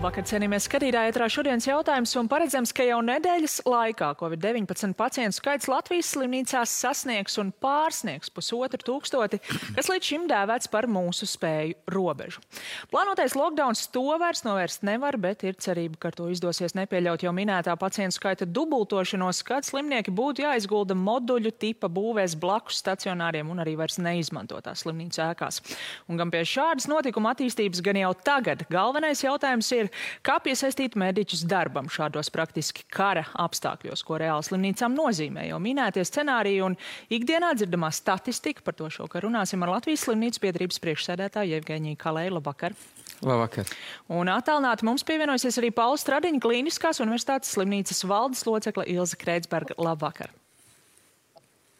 Labvakar, cienījamies skatītāji, ētrā šodienas jautājums un paredzams, ka jau nedēļas laikā Covid-19 pacientu skaits Latvijas slimnīcās sasniegs un pārsniegs 1500, kas līdz šim dēvēts par mūsu spēju robežu. Plānotais lockdowns to vairs novērst nevar, bet ir cerība, ka ar to izdosies nepieļaut jau minētā pacientu skaita dubultošanos, kad slimnieki būtu jāizgulda moduļu tipa būvēs blakus stacionāriem un arī vairs neizmantotās slimnīcu ēkās. Un gan pie šādas notikuma attīstības, gan jau tagad galvenais jautājums ir, kā piesaistīt mediķus darbam šādos praktiski kara apstākļos, ko reāli slimnīcām nozīmē. Jau minētie scenāriji un ikdienā dzirdamā statistika, par to šokar runāsim ar Latvijas slimnīcu biedrības priekšsēdētāju Jevgeņiju Kalēju. Labvakar! Labvakar! Un attālināti mums pievienosies arī Paula Stradiņa Klīniskās universitātes slimnīcas valdes locekle Ilze Kreitsberga. Labvakar!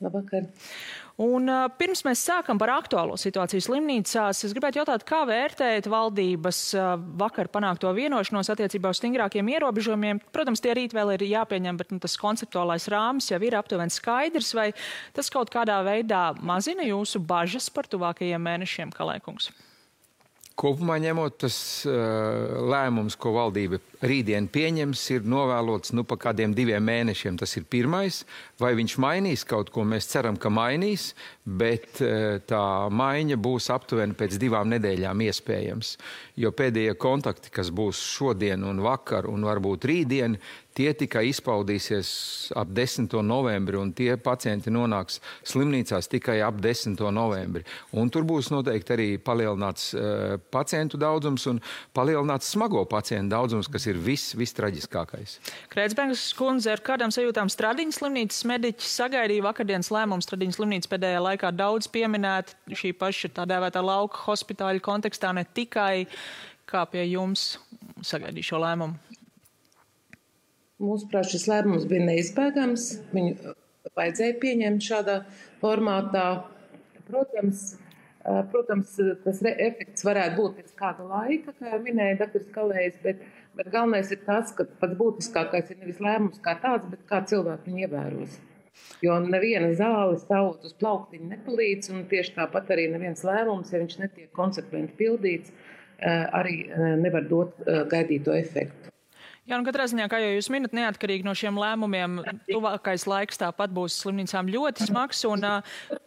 Labvakar! Un pirms mēs sākam par aktuālo situāciju slimnīcās, es gribētu jautāt, kā vērtējat valdības vakar panākto vienošanos attiecībā uz stingrākiem ierobežojumiem. Protams, tie rīt vēl ir jāpieņem, bet tas konceptuālais rāmis jau ir aptuveni skaidrs. Vai tas kaut kādā veidā mazina jūsu bažas par tuvākajiem mēnešiem, Kalēkungs? Kopumā ņemot, tas lēmums, ko valdība rītdien pieņems, ir novēlots pa kādiem 2 mēnešiem. Tas ir pirmais. Vai viņš mainīs kaut ko? Mēs ceram, ka mainīs, bet tā maiņa būs aptuveni pēc 2 nedēļām iespējams. Jo pēdējie kontakti, kas būs šodien un vakar un varbūt rītdien, tie tikai izpaudīsies ap 10. novembri, un tie pacienti nonāks slimnīcās tikai ap 10. novembri. Un tur būs noteikti arī palielināts pacientu daudzums un palielināts smago pacientu daudzums, kas ir vistraģiskākais. Kreitsbergas kundze, ar kādām sajūtām Stradiņas slimnīcas mediķi sagaidīja vakardienas lēmumu? Stradiņas slimnīca pēdējā laikā daudz pieminēta šī paša tā dēvētā lauka hospitāļu kontekstā, ne tikai. Kā pie jums sagaidīja šo lēmumu? Mūsuprāt, šis lēmums bija neizbēgams. Viņu vajadzēja pieņemt šādā formātā. Protams, tas efekts varētu būt pēc kāda laika, kā jau minēja dr. Kalējs, bet galvenais ir tas, ka pats būtiskākais ir nevis lēmums kā tāds, bet kā cilvēki viņu ievēros. Jo neviena zāle stāvot uz plauktiņa nepalīdz, un tieši tāpat arī neviens lēmums, ja viņš netiek konsekventi pildīts, arī nevar dot gaidīto efektu. Jā, un katrā ziņā, kā jau jūs minat, neatkarīgi no šiem lēmumiem, tuvākais laiks tāpat būs slimnīcām ļoti smags, un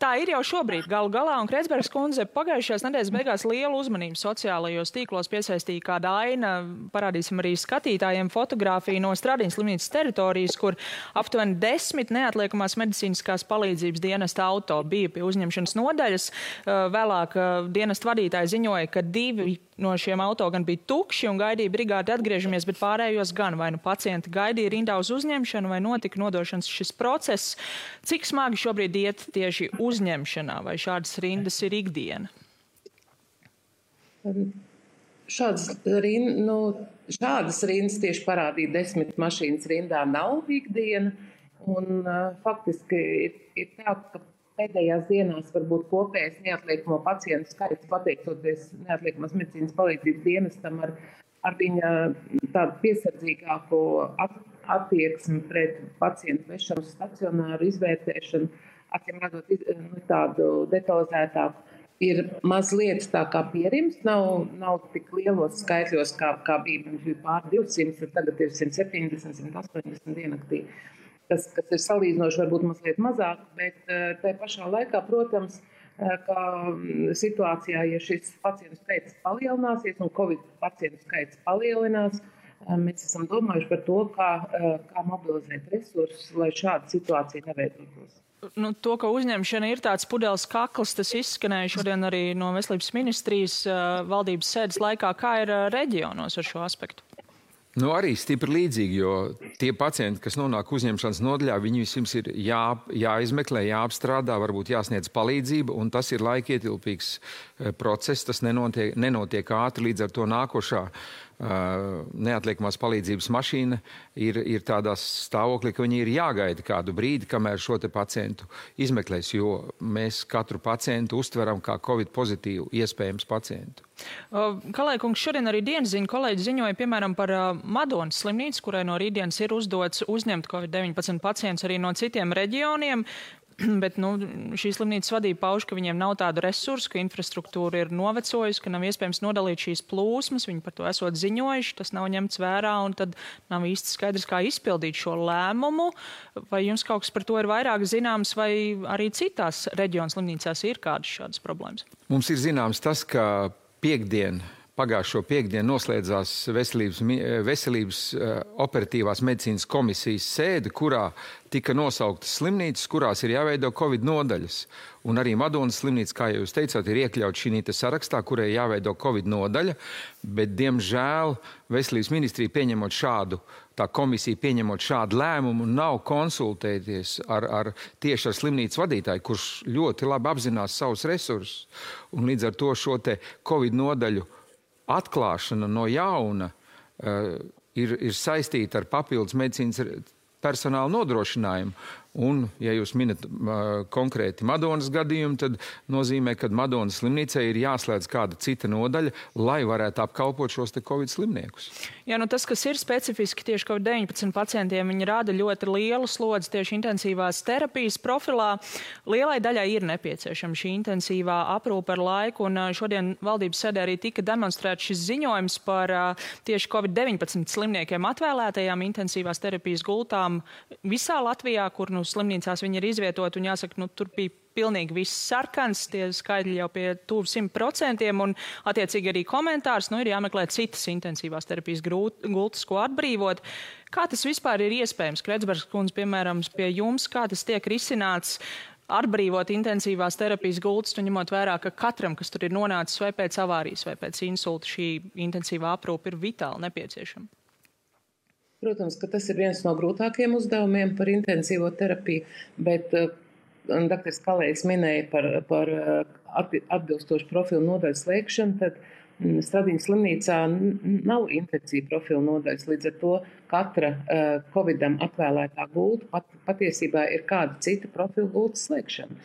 tā ir jau šobrīd galu galā, un Kreitsbergas kundze pagājušajās nedēļas beigās lielu uzmanību sociālajos tīklos piesaistīja kāda aina, parādīsim arī skatītājiem fotogrāfiju no Stradiņas slimnīcas teritorijas, kur aptuveni 10 neatliekamās medicīniskās palīdzības dienesta auto bija pie uzņemšanas nodaļas. Vēlāk dienesta vadītāji ziņoja, ka 2 no šiem auto gan bija tukši un gaidīja brigādi atgriežamies, bet pārējos gan vai nu pacienti gaidīja rindā uz uzņemšanu vai notika nodošanas šis process. Cik smagi šobrīd iet tieši uzņemšanā vai šādas rindas ir ikdiena? Šādas rindas tieši parādīja 10 mašīnas rindā nav ikdiena. Un faktiski ir tā, ka pēdējās dienās varbūt kopējais neatliekamo pacientu skaits, pateicoties neatliekamās medicīnas palīdzības dienestam ar viņa tādu piesardzīgāko attieksmi pret pacientu vešanu stacionāru izvērtēšanu, acīm redzot tādu detalizētāku, ir mazliet tā kā pierims, nav tik lielos skaitļos, kā bija pār 200, tagad ir 170, 180 diennaktī. Kas ir salīdzinoši varbūt mazliet mazāk, bet tajā pašā laikā, protams, ka situācijā, ja šis pacientu skaits palielināsies un Covid pacientu skaits palielinās, mēs esam domājuši par to, kā mobilizēt resursus, lai šāda situācija neveidotos. To, ka uzņemšana ir tāds pudeles kakls, tas izskanēja šodien arī no Veselības ministrijas valdības sēdes laikā. Kā ir reģionos ar šo aspektu? Arī stipri līdzīgi, jo tie pacienti, kas nonāk uzņemšanas nodaļā, viņi vispirms ir jāizmeklē, jāapstrādā, varbūt jāsniedz palīdzība, un tas ir laikietilpīgs process, tas nenotiek ātri, līdz ar to nākošā neatliekamās palīdzības mašīna ir tādā stāvoklī, ka viņi ir jāgaida kādu brīdi, kamēr šo te pacientu izmeklēs, jo mēs katru pacientu uztveram kā Covid pozitīvu iespējams pacientu. Kalēkungs, šodien arī dienasziņu kolēģi ziņoja, piemēram, par Madonas slimnīcu, kurai no rītdienas ir uzdots uzņemt Covid-19 pacientus arī no citiem reģioniem. Bet šī slimnīcas vadība pauž, ka viņiem nav tādu resursu, ka infrastruktūra ir novecojusi, ka nav iespējams nodalīt šīs plūsmas, viņi par to esot ziņojuši, tas nav ņemts vērā un tad nav īsti skaidrs, kā izpildīt šo lēmumu. Vai jums kaut kas par to ir vairāk zināms, vai arī citās reģionu slimnīcās ir kādas šādas problēmas? Mums ir zināms tas, ka pagājušo piekdienu noslēdzās veselības operatīvās medicīnas komisijas sēde, kurā tika nosauktas slimnīcas, kurās ir jāveido Covid nodaļas. Un arī Madonas slimnīca, kā jūs teicāt, ir iekļaut šī sarakstā, kurai jāveido Covid nodaļa, bet, diemžēl, veselības ministrija pieņemot šādu, tā komisija pieņemot šādu lēmumu, nav konsultēties tieši ar slimnīcas vadītāju, kurš ļoti labi apzinās savus resursus. Un līdz ar to šo te Covid nodaļu atklāšana no jauna ir saistīta ar papildus medicīnas personāla nodrošinājumu. Un, ja jūs minat konkrēti Madonas gadījumu, tad nozīmē, ka Madonas slimnīcai ir jāslēdz kāda cita nodaļa, lai varētu apkalpot šos te Covid slimniekus. Jā, tas, kas ir specifiski tieši Covid-19 pacientiem, viņi rāda ļoti lielu slodzi tieši intensīvās terapijas profilā. Lielai daļai ir nepieciešama šī intensīvā aprūpe ar laiku, un šodien valdības sēdē arī tika demonstrēts šis ziņojums par tieši Covid-19 slimniekiem atvēlētajām intensīvās terapijas gultām visā Latvijā, kur slimnīcās viņi ir izvietoti, un jāsaka, tur bija pilnīgi viss sarkans, tie skaidri jau pie tuvu 100%, un attiecīgi arī komentārs, ir jāmeklē citas intensīvās terapijas gultas, ko atbrīvot. Kā tas vispār ir iespējams? Kretsbergas kundze, piemēram, pie jums, kā tas tiek risināts atbrīvot intensīvās terapijas gultas, un ņemot vērā, ka katram, kas tur ir nonācis vai pēc avārijas, vai pēc insulta, šī intensīvā aprūpe ir vitāli nepieciešama? Protams, ka tas ir viens no grūtākiem uzdevumiem par intensīvo terapiju, bet dr. Kalējs minēja par atbilstošu profilu nodaļu slēgšanu, tad Stradiņas slimnīcā nav intensīva profilu nodaļas, līdz ar to katra Covidam atvēlētā gulta patiesībā ir kāda cita profilu gultas slēgšana.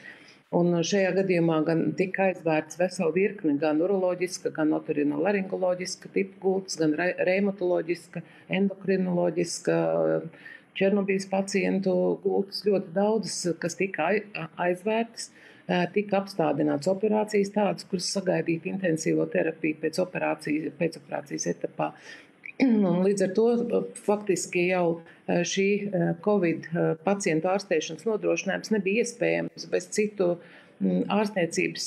Un šajā gadījumā gan tika aizvērts vesela virkne, gan uroloģiska, gan otorinolaringoloģiska tipu gultas, gan reumatoloģiska, endokrinoloģiska, Černobīles pacientu gultas, ļoti daudzas, kas tika aizvērtas, tika apstādināts operācijas tādas, kuras sagaidītu intensīvo terapiju pēcoperācijas etapā. Un līdz ar to faktiski jau šī Covid pacientu ārstēšanas nodrošinājums nebija iespējams bez citu ārstniecības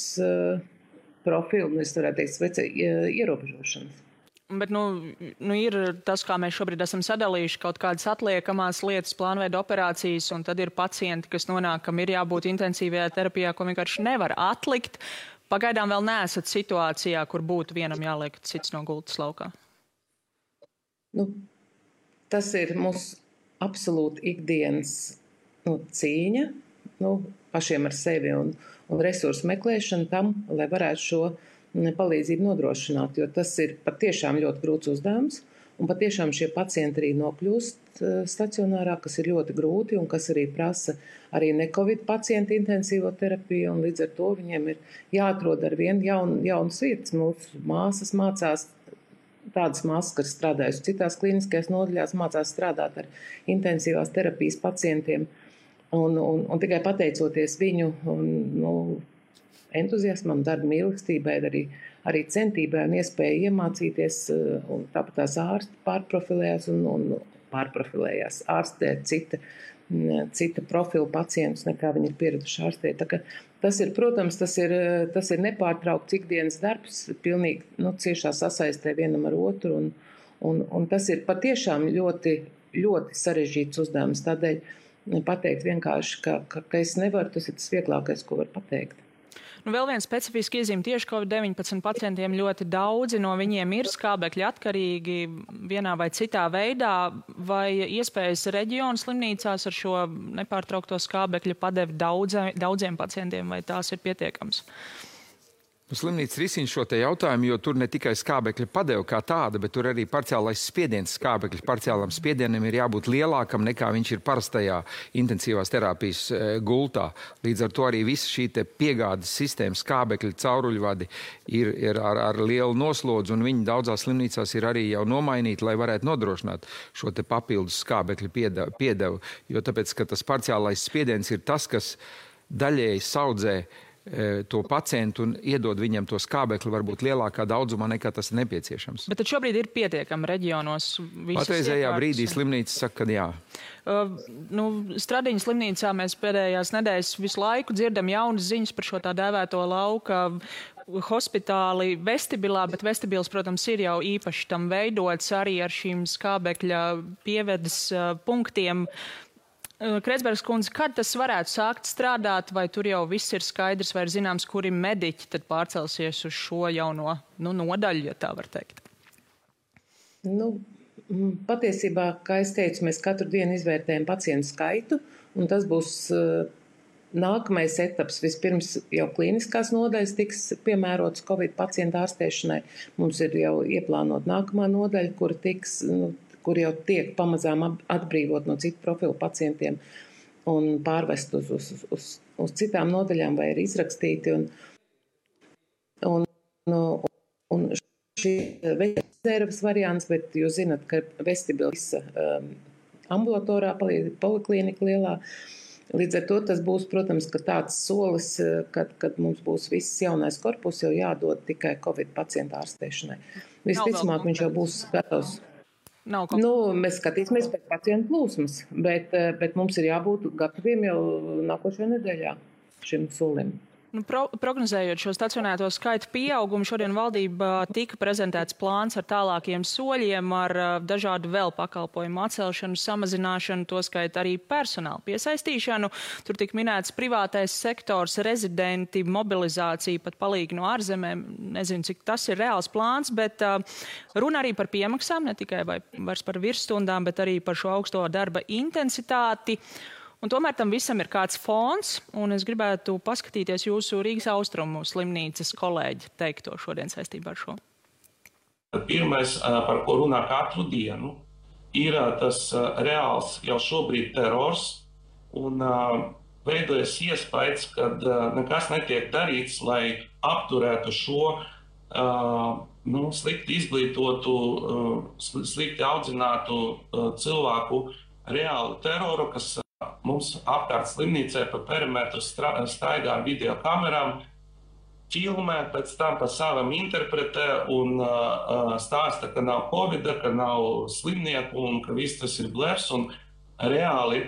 profilu, es varētu teikt, ierobežošanas. Bet ir tas, kā mēs šobrīd esam sadalījuši kaut kādas atliekamās lietas, plānveida operācijas, un tad ir pacienti, kas nonāk, kam ir jābūt intensīvajā terapijā, ko vienkārši nevar atlikt. Pagaidām vēl neesat situācijā, kur būtu vienam jāliek cits no gultas laukā. Tas ir mūsu absolūti ikdienas cīņa, pašiem ar sevi un resursu meklēšana tam, lai varētu šo palīdzību nodrošināt, jo tas ir patiešām ļoti grūts uzdevums, un patiešām šie pacienti arī nokļūst stacionārā, kas ir ļoti grūti un kas arī prasa arī ne-Covid pacientu intensīvo terapiju, un līdz ar to viņiem ir jāatrod ar vien jaunas vietas. Mūsu māsas mācās, tādas māsas, kas strādājusi citās klīniskajās nodaļās, mācās strādāt ar intensīvās terapijas pacientiem, un tikai pateicoties viņu entuziasmam, darba mīlestībai, arī centībai un iespēju iemācīties, un tāpat tās ārsti pārprofilējās ārstēt cita profila pacientus, nekā viņi ir pieraduši ārstēt. Tā ka tas ir, protams, tas ir nepārtraukts ikdienas darbs, pilnīgi ciešā sasaistē vienam ar otru, un tas ir patiešām ļoti, ļoti sarežģīts uzdevums. Tādēļ pateikt vienkārši, ka es nevaru, tas ir tas vieglākais, ko var pateikt. Vēl viens specifiski iezīme tieši Covid-19 pacientiem ļoti daudzi no viņiem ir skābekļa atkarīgi vienā vai citā veidā, vai iespējas reģionu slimnīcās ar šo nepārtraukto skābekļa padevi daudziem pacientiem, vai tās ir pietiekams? Slimnīca risina šo te jautājumu, jo tur ne tikai skābekļa padeva kā tāda, bet tur arī parciālais spiediens skābekļa parciālam spiedienam ir jābūt lielākam nekā viņš ir parastajā intensīvās terapijas gultā. Līdz ar to arī visa šī te piegādes sistēma skābekļa cauruļvadi ir ar lielu noslodzi, un viņi daudzās slimnīcās ir arī jau nomainīti, lai varētu nodrošināt šo te papildus skābekļa piedevu. Jo tāpēc, ka tas parciālais spiediens ir tas, kas daļēji saudzē to pacientu un iedod viņam to skābekli varbūt lielākā daudzumā nekā tas ir nepieciešams. Bet tad šobrīd ir pietiekami reģionos visas patreizējā brīdī slimnīca saka, ka jā. Stradiņas slimnīcā mēs pēdējās nedēļas visu laiku dzirdam jaunas ziņas par šo tā dēvēto lauka hospitāli vestibilā, bet vestibils, protams, ir jau īpaši tam veidots arī ar šīm skābekļa pievedes punktiem. Kreitsbergas kundze, kad tas varētu sākt strādāt, vai tur jau viss ir skaidrs, vai ir zināms, kuri mediķi tad pārcelsies uz šo jauno nodaļu, ja tā var teikt? Patiesībā, kā es teicu, mēs katru dienu izvērtējam pacientu skaitu, un tas būs nākamais etaps. Vispirms jau klīniskās nodaļas tiks piemērotas Covid pacientu ārstēšanai. Mums ir jau ieplānot nākamā nodaļa, kur jau tiek pamazām atbrīvot no citu profilu pacientiem un pārvest uz citām nodaļām vai ir izrakstīti. Un šī rezerves variants, bet jūs zinat, ka vestibils ambulatorā poliklinika lielā. Līdz ar to tas būs, protams, ka tāds solis, kad mums būs viss jaunais korpus jau jādod tikai Covid pacientu ārstēšanai. Visticamāk, viņš jau būs gatavs. Mēs skatīsimies pēc pacientu plūsmas, bet mums ir jābūt gataviem jau nākošajā nedēļā šim solim. Prognozējot šo stacionēto skaitu pieaugumu, šodien valdībā tika prezentēts plāns ar tālākiem soļiem, ar dažādu vēl pakalpojumu atcelšanu, samazināšanu, to skait arī personālu piesaistīšanu. Tur tika minēts privātais sektors, rezidenti, mobilizācija, pat palīgi no ārzemēm. Nezinu, cik tas ir reāls plāns, bet runa arī par piemaksām, ne tikai vairs par virsstundām, bet arī par šo augsto darba intensitāti. Un tomēr tam visam ir kāds fons, un es gribētu paskatīties jūsu Rīgas Austrumu slimnīcas kolēģi teikto šodien saistībā ar šo. Pirmais, par ko runā katru dienu, ir tas reāls jau šobrīd terors, un veidojas iespējas, ka nekas netiek darīts, lai apturētu šo slikti izglītotu, slikti audzinātu cilvēku reālu teroru, kas mums apkārt slimnīcē pa perimetru staigā ar video kamerām, filmē, pēc tam pa savam interpretē un stāsta, ka nav covida, ka nav slimnieku un ka viss tas ir blefs un reāli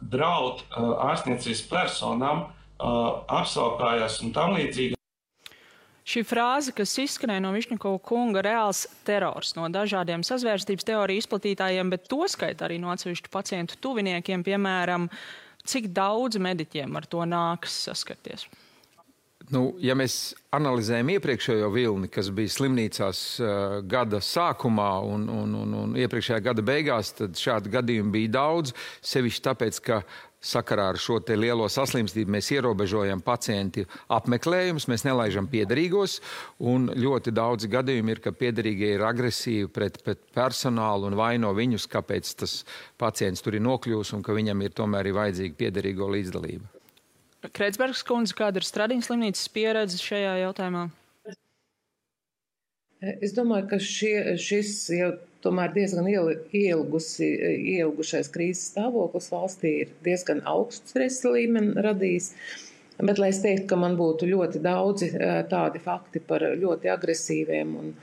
draud ārstniecības personām, apsaukājās un tam līdzīgi. Šī frāze, kas izskanēja no Višņakova kunga, reāls terors no dažādiem sazvērstības teoriju izplatītājiem, bet to skait arī no atsevišķu pacientu tuviniekiem, piemēram, cik daudz mediķiem ar to nākas saskarties? Ja mēs analizējam iepriekšējo vilni, kas bija slimnīcās gada sākumā un iepriekšējā gada beigās, tad šādu gadījumu bija daudz, sevišķi tāpēc, ka sakarā ar šo te lielo saslimstību mēs ierobežojam pacienti apmeklējumus, mēs nelaižam piederīgos, un ļoti daudz gadījumi ir, ka piederīgie ir agresīvi pret personālu un vaino viņus, kāpēc tas pacients tur ir nokļūs un ka viņam ir tomēr vajadzīga piederīgo līdzdalība. Kreitsbergas kundze, kāda ir Stradiņas slimnīcas pieredze šajā jautājumā? Es domāju, ka šis jau tomēr diezgan ielgušais krīzes stāvoklis valstī ir diezgan augstu stresa līmeni radījis. Bet, lai es teiktu, ka man būtu ļoti daudzi tādi fakti par ļoti agresīviem un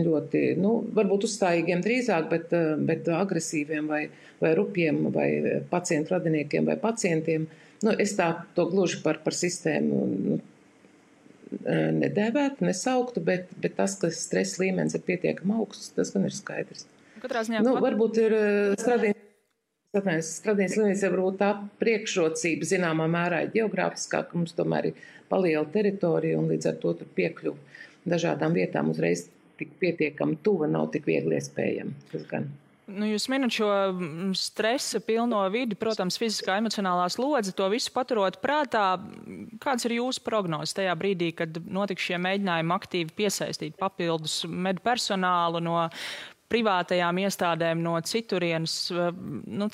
ļoti, varbūt uzstājīgiem drīzāk, bet agresīviem vai rupjiem vai pacientu radiniekiem vai pacientiem, es to gluži par sistēmu nedēvētu, nesauktu, bet tas, ka stresa līmenis ir pietiekami augsts, tas gan ir skaidrs. Varbūt ir Stradiņas slimnīca, varbūt tā priekšrocība zināmā mērā ir ģeogrāfiskā, ka mums tomēr ir paliela teritorija un līdz ar to tur piekļuva dažādām vietām uzreiz tik pietiekami tuva, nav tik viegli iespējama. Tas gan. Jūs minat šo stresa pilno vidi, protams, fiziskā, emocionālā slodze, to visu paturot prātā. Kāds ir jūsu prognozes tajā brīdī, kad notiks šie mēģinājumi aktīvi piesaistīt papildus medpersonālu no privātajām iestādēm, no citurienes?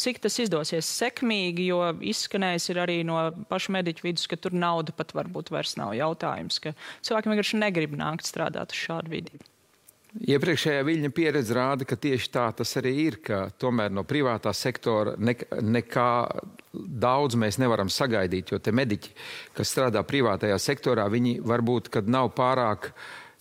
Cik tas izdosies sekmīgi, jo izskanējis ir arī no pašu mediķu vidus, ka tur nauda pat varbūt vairs nav jautājums, ka cilvēki vienkārši negrib nākt strādāt uz šādu vidi. Iepriekšējā Viļņa pieredze rāda, ka tieši tā tas arī ir, ka tomēr no privātā sektora nekā daudz mēs nevaram sagaidīt, jo te mediķi, kas strādā privātajā sektorā, viņi varbūt, kad nav pārāk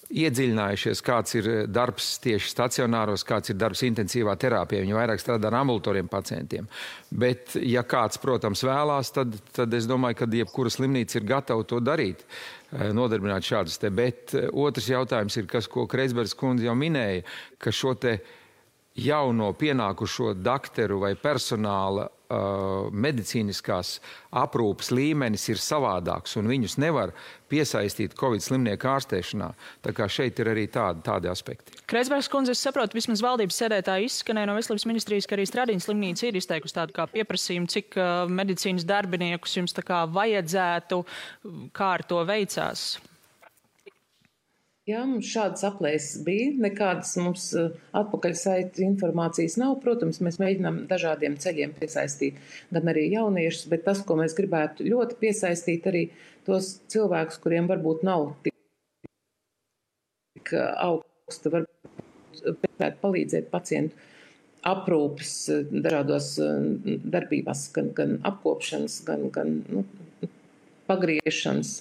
iedziļinājušies, kāds ir darbs tieši stacionāros, kāds ir darbs intensīvā terapijā. Viņi vairāk strādā ar ambulatoriem pacientiem. Bet, ja kāds, protams, vēlās, tad es domāju, ka jebkura slimnīca ir gatava to darīt, nodarbināt šādus te. Bet otrs jautājums ir, ko Kreizbergas kundze jau minēja, ka šo te jauno pienākušo dakteru vai personāla medicīniskās aprūpes līmenis ir savādāks un viņus nevar piesaistīt Covid slimnieku ārstēšanā. Tā kā šeit ir arī tādi aspekti. Kreizbergas kundze, es saprotu, vismaz valdības sēdētāji izskanēja no Veselības ministrijas, ka arī Stradiņas slimnīca ir izteikusi tādu kā pieprasījumu, cik medicīnas darbiniekus jums tā kā vajadzētu, kā ar to veicās. Jā, mums šādas aplēses bija, nekādas mums atpakaļsaita informācijas nav. Protams, mēs mēģinām dažādiem ceļiem piesaistīt gan arī jauniešus, bet tas, ko mēs gribētu ļoti piesaistīt, arī tos cilvēkus, kuriem varbūt nav tik augsta, varbūt palīdzēt pacientu aprūpes dažādos darbībās, gan apkopšanas, gan pagriešanas,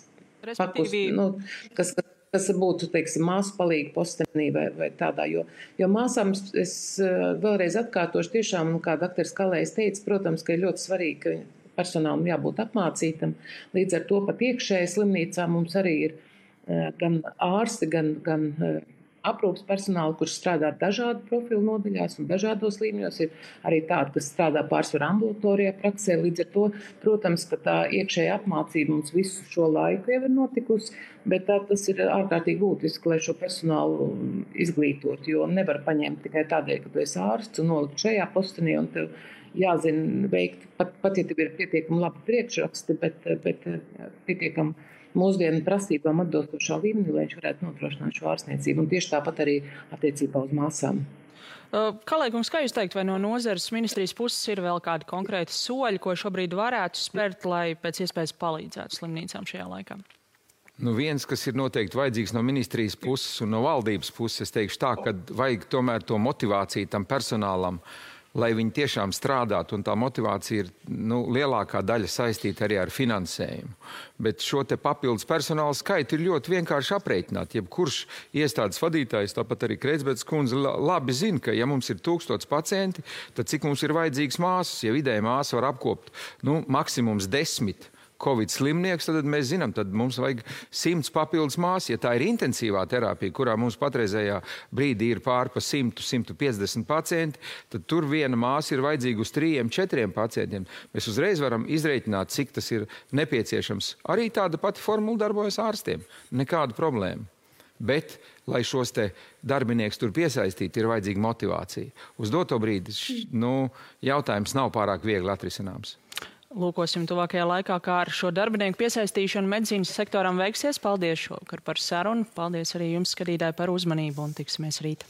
kas būtu, teiksim, māsu palīga postenī vai tādā, jo māsām es vēlreiz atkārtošu tiešām, kā doktors Kalējs teica, protams, ka ir ļoti svarīgi, ka personālam jābūt apmācītam. Līdz ar to pat iekšēji slimnīcā mums arī ir gan ārsti, gan aprūpas personāli, kurš strādā dažādu profilu nodaļās un dažādos līmeņos, ir arī tādi, kas strādā pārsvarā ambulatorijā praksē. Līdz ar to, protams, ka tā iekšēja apmācība mums visu šo laiku jau ir notikusi, bet tas ir ārkārtīgi būtiski, lai šo personālu izglītot, jo nevar paņemt tikai tādēļ, ka tu esi ārsts un nolikt šajā postenī un tev jāzina veikt, pat ja tev ir pietiekami labi priekšraksti, bet pietiekami mūsdienu prasībām atbilstošā līmenī, lai viņš varētu nodrošināt šo ārstniecību. Un tieši tāpat arī attiecībā uz māsām. Kalējkungs, kā jūs teikt, vai no nozares ministrijas puses ir vēl kādi konkrēti soļi, ko šobrīd varētu spērt, lai pēc iespējas palīdzētu slimnīcām šajā laikā? Viens, kas ir noteikti vajadzīgs no ministrijas puses un no valdības puses, es teikšu tā, ka vajag tomēr to motivāciju tam personālam, lai viņi tiešām strādātu, un tā motivācija ir lielākā daļa saistīta arī ar finansējumu. Bet šo te papildus personāla skaitu ir ļoti vienkārši aprēķināt. Jebkurš iestādes vadītājs, tāpat arī Kreizbergas kundze, labi zina, ka ja mums ir 1000 pacienti, tad cik mums ir vajadzīgs māsas? Ja vidēji māsa var apkopt maksimums 10 Covid slimnieks, tad mēs zinām, tad mums vajag 100 papildus māsas. Ja tā ir intensīvā terapija, kurā mums patreizējā brīdī ir pār pa 100–150 pacienti, tad tur viena māsa ir vajadzīga uz 3–4 pacientiem. Mēs uzreiz varam izreikināt, cik tas ir nepieciešams. Arī tāda pati formula darbojas ārstiem. Nekāda problēma. Bet, lai šos te darbinieks tur piesaistītu, ir vajadzīga motivācija. Uz doto brīdi jautājums nav pārāk viegli atrisināms. Lūkosim tuvākajā laikā, kā ar šo darbinieku piesaistīšanu medicīnas sektoram veiksies. Paldies šovakar par sarunu. Paldies arī jums, skatītāji, par uzmanību un tiksimies rīt.